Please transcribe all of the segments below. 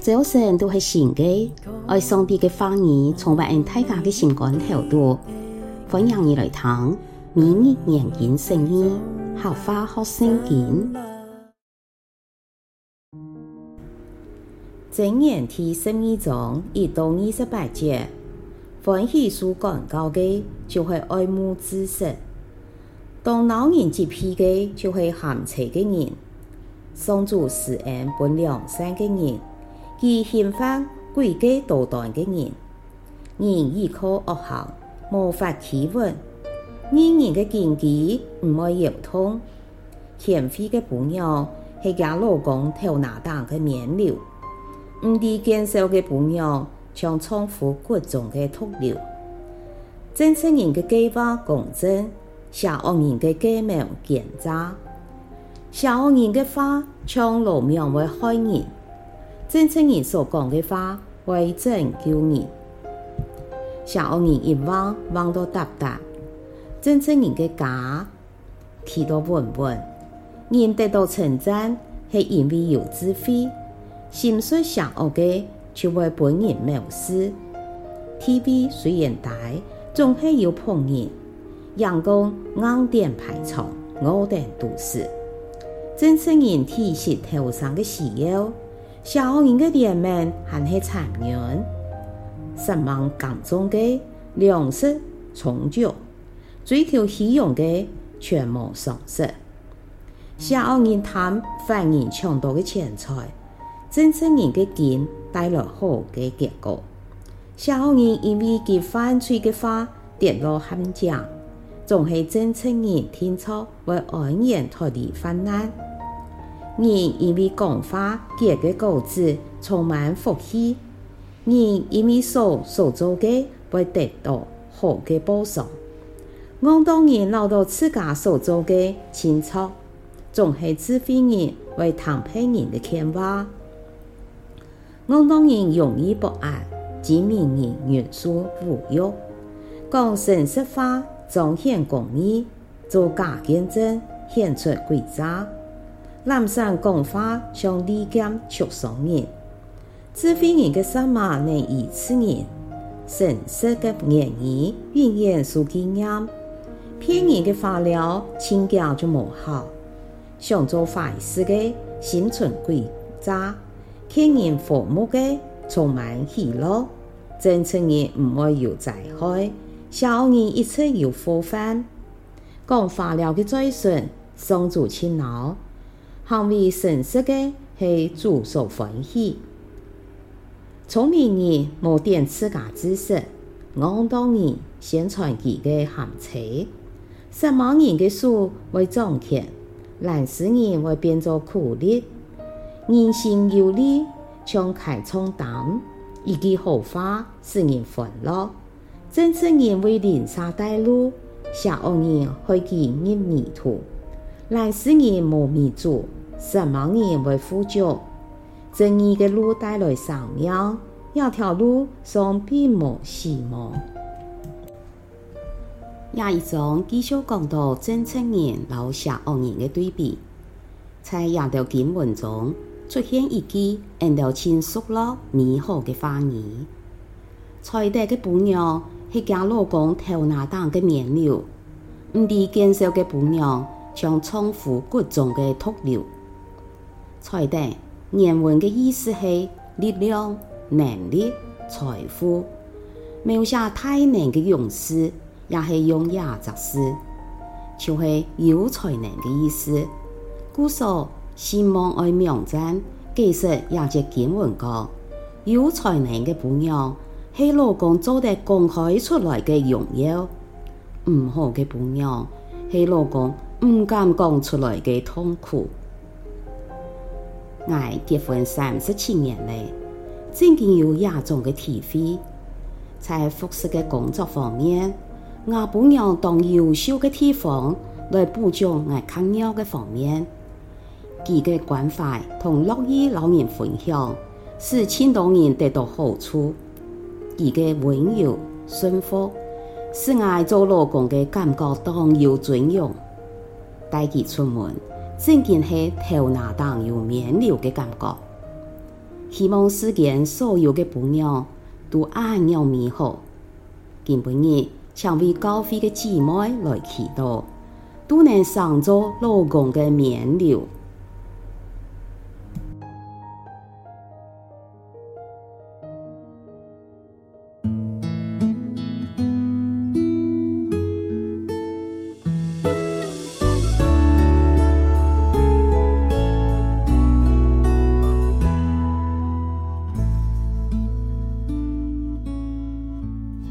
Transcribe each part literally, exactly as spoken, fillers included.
朝晨都係新个，愛上帝个話語充滿恩大家个心肝頭肚。歡迎你來聽每日研經釋義，客話學聖經。箴言第十二章一到二十八節，歡喜受管教个，就係愛慕知識。 當惱人責備个，就係鹹差个人。上主施恩分良善个人，佢刑罰詭計多端个人。人依靠惡行，無法企穩；義人个根基毋會搖動。賢慧个餔娘係厥老公頭那頂个冕旒，毋知見笑个餔娘像丈夫骨中个毒瘤。正直人个計劃公正， 邪惡人个計謀奸詐。邪惡人个話像羅網會害人，正直人所講个話會拯救人。邪惡人一橫橫到搭搭，正直人个家企到穩穩。 人得到稱讚，係因為有智慧；心術邪惡个，就會分人藐視。智慧雖然大，總係有僕人；眼光硬頂排場，餓等肚屎。正直人體恤頭生个需要，邪惡人个憐憫還係殘忍。煞猛耕種个，糧食充足； 追求虛榮个，全無賞識。邪惡人貪犯人搶到个錢財，正直人个根帶來好个結果。邪惡人因為佢犯罪个話跌落陷阱，總係正直人定著會安然脫離患難。人因為講話結个果子充滿福氣， 人因為所所做个會得到好个報賞。戇當人恅著自家所做个清著，總係智慧人會聽別人个勸話。戇當人容易發閼，精明人忍受侮辱。講誠實話，彰顯公義， 做假見證，顯出詭詐。懶散講話像利劍刺傷人。智慧人个舌嫲能醫治人，誠實个言語永遠受紀念。騙人个話尞，盡遽就無效。想做壞事个，心存詭詐；勸人和睦个，充滿喜樂。正直人毋會有災害，邪惡人一直有禍患。 講話尞个嘴唇，上主盡惱；行為誠實个，係主所歡喜。聰明人無展自家知識，戇當人宣傳佢个鹹差。煞猛人个手會掌權，懶尸人會變做苦力。人心有利，像開倉擔；一句好話，使人歡樂。 正直人為鄰舍帶路，邪惡人害佢入迷途。懶尸人無米煮，煞猛人會富足。正義个路帶來生命，這條路上並無死亡。這一章繼續講到正直人摎邪惡人个對比。 在這兜經文中，出現一句𠊎兜盡熟絡美好个話語：「才德个餔娘係厥老公頭那頂个冕旒，毋知見笑个餔娘像丈夫骨中个毒瘤。」才德原文个意思係力量、能力、財富，描寫大能个勇士， 也係用這隻字，就係有才能个意思。故所，希望愛網站解釋這節經文講，有才能个餔娘係老公做得講開出來个榮耀，毋好个餔娘係老公毋敢講出來个痛苦。 𠊎結婚三十七年了，正經有這種个體會。在服侍个工作方面，吾餔娘當優秀个地方來補足𠊎較弱个方面。佢个關懷同樂意摎人分享，使盡多人得到好處。佢个溫柔、順服，使𠊎做老公个感覺當有尊榮。 帶佢出門，正經係頭那頂有冕旒个感覺。希望世間所有个餔娘都恁樣美好。今晡日，請為教會个姊妹來祈禱，都能成做老公个冕旒。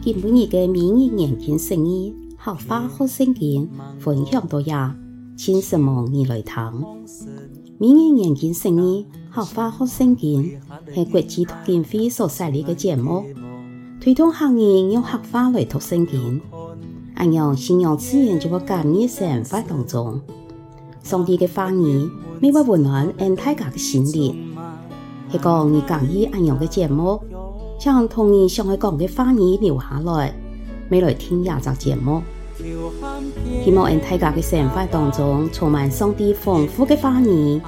今晡日个每日研經釋義，客話學聖經，分享到這，盡承蒙你來聽。 每日研經釋義，客話學聖經，係國際讀經會所設立个節目，推動客人用客話來讀聖經。恁樣，信仰自然就會加入生活當中。上帝个話語，乜會溫暖𫣆大家个心靈。係講你介意恁樣个節目，請同你想愛講个話語留下來，乜來聽這隻節目。 希望𫣆大家个生活當中充滿上帝豐富个話語，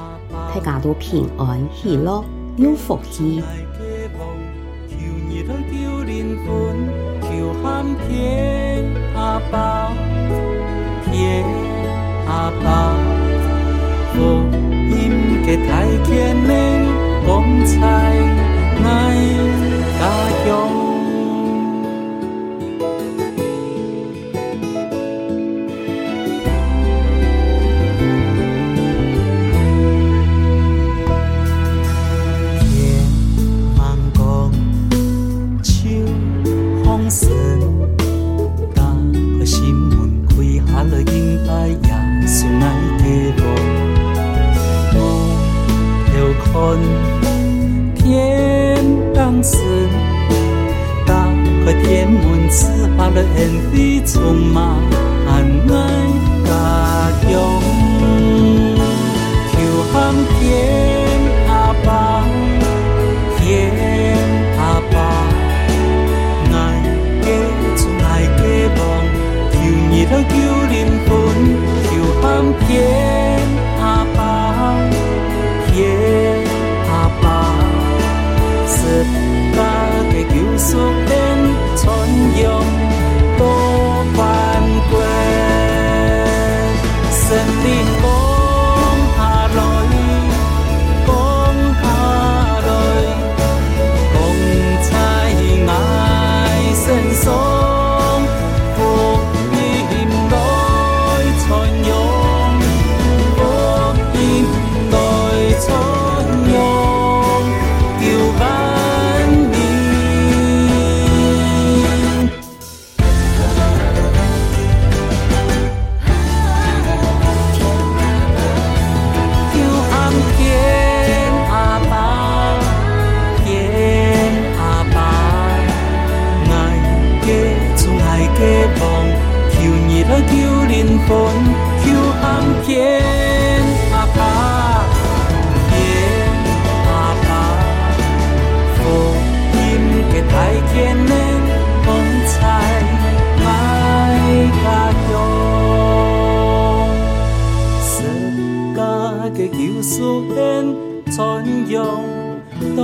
大家都平安、喜樂、有福氣。 天吂光，就放心，打開心門，跪下來敬拜耶穌，𠊎个王。 頭看天頂星，打開天門，賜下來恩惠，充滿𠊎家鄉。求喊天阿爸，天阿爸，𠊎个主，𠊎个王，求你來救靈魂，求喊天阿爸。 天阿爸，十架个救贖恩傳揚到萬國。聖靈降下來，降下來，降在𠊎身上。 福音來傳揚，福音來傳揚，救萬民。求喊天阿爸，天阿爸，𠊎个主，𠊎个王， 求你來救靈魂，求喊天阿爸，天阿爸，福音个大權能，光彩𠊎家鄉。十架个救贖恩，傳揚到